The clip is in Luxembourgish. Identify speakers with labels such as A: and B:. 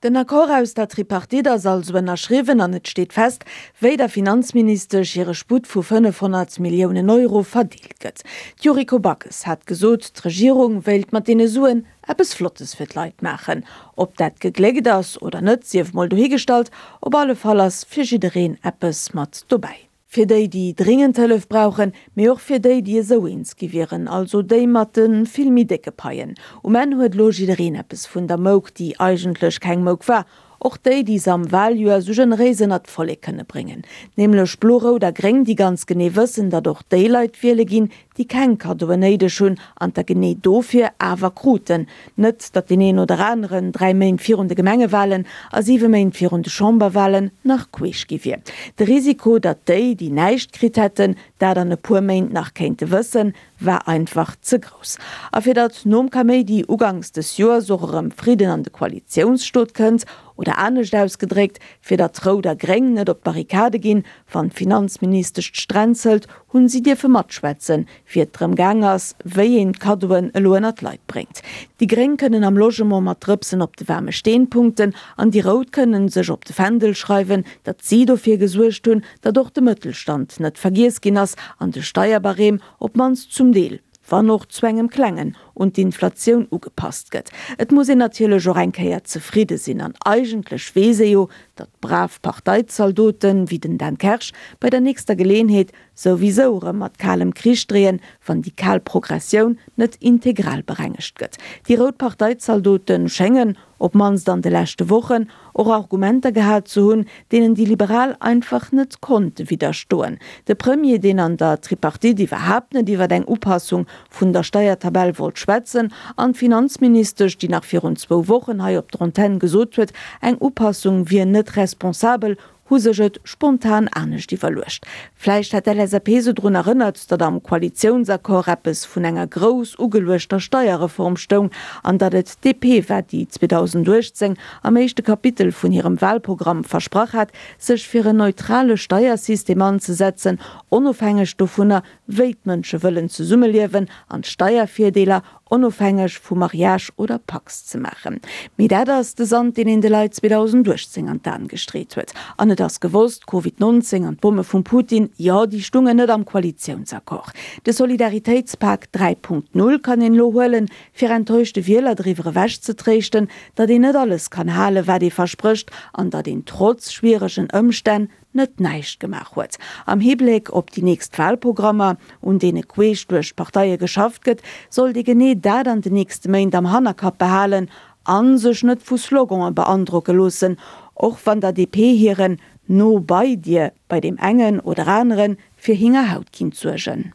A: Den Accord aus der Tripartite ass also ënnerschriwwen an et steet fest, wéi der Finanzministesch hire Sputt vu 500 Milliounen Euro verdeelt gëtt. D'Yuriko Backes hat gesot, d'Regierung wéilt mat deene Suen eppes Flottes fir d'Leit maachen. Ob dat gegléckt ass oder net, sief mol dohigestallt, op alle Fall ass fir jiddereen eppes mat dobäi. Fir déi, déi dringend Hëllef brauchen, mee och fir déi, déi esou eens gi wieren, also déi mat de vill méi décke Paien. Um Enn huet elo jiddereen eppes vun der Mouk, déi eigentlech keng Mouk war, och déi, déi se am Waljoer esou generéis ënnert d'Vollek kënne bréngen, nämlech Blo, Rout a Gréng, déi ganz genee wëssen, datt och déi Leit wiele ginn, déi keng Kaddoen néideg hunn an der genee dofir awer kruten. Net, datt deen een oder aneren 3 Méint virun de Gemengewalen a 7 Méint virun de Chamberwalen nach queesch gi wier. De Risiko, datt déi, déi näischt kritt hätten, dat an e puer Méint nach kéinte wëssen, war einfach ze grouss. A fir datt nom Kaméidi uganks des Joers och erëm Fridden an de Koalitiounsstot kënnt, oder anescht ausgedréckt, fir datt Rout a Gréng net op d'Barrikade ginn, wann d'Finanzministesch d'Stränzelt, hunn si dierfe matschwätzen, wéi et drëm gaang ass, wéi een d'Kaddoen elo ënnert d'Leit bréngt. Déi Gréng kënnen am Logement mat Drëpsen op de waarme Steen punkten an déi Rout kënnen sech op de Fändel schreiwen, datt si dofir gesuergt hunn, datt och de Mëttelstand net vergiess ginn ass an de Steierbarème op d'mannst zum Deel, wann och zu engem klengen, un d'Inflatioun ugepasst gëtt. Et muss een natierlech och eng Kéier zefridde sinn an eigentlech weess ee jo, datt brav Parteizaldoten, wéi den Dan Kersch, bei der nächster Geleenheet souwisou erëm mat kalem Krich dreeën, wann déi kal Progressioun net integral berengegt gëtt. Déi rout Parteizaldote schéngen, op d'mannst an de leschte Wochen, och Argumenter gehat ze hunn, deenen déi Liberal einfach net konnte widderstoen. De Premier, deen an der Tripartite iwwerhaapt net iwwer eng Upassung vun der Steiertabell wollt schwätzen, an d'Finanzministesch, déi nach virun zwou Wochen hei op der Antenn gesot huet, eng Upassung wier net responsabel, hu sech et spontan anescht iwwerluecht. Vläicht hat d'LSAP se drun erënnert, datt am Koalitiounsaccord eppes vun enger grouss ugeluechter Steierreform stoung an datt et d'DP war, déi 2018 am éischte Kapitel vun hirem Wahlprogramm versprach hat, sech fir en neutrale Steiersystem anzesetzen, onofhängeg dovunner, wéi d'Mënsche wëllen zesummeliewen an d'Steiervirdeeler onofhängeg vu Mariage oder Pacs ze maachen. Mee dat ass de Sand, deen een de Leit 2018 an d'Aen gestreet huet. An et ass gewosst, Covid 19 an d'Bomme vum Putin, jo, déi stungen net am Koalitiounsaccord. De Solidaritéitspak 3.0 kann een elo huelen, fir enttäuschte Wieler driwwer ewech ze tréischten, datt een net alles kann halen, wat ee versprécht, an datt een trotz schwieregen Ëmstänn net näischt gemaach huet. Am Hibléck op déi nächst Wahlprogrammer, un deene queesch duerch d'Parteie geschafft gëtt, sollt ee genee dat an den nächste Méint am Hannerkapp behalen a sech net vu Slogane beandrocke loossen, och wann der DP hiren No bei dir bei deem engen oder anere fir Hingerhaut kinnt suergen.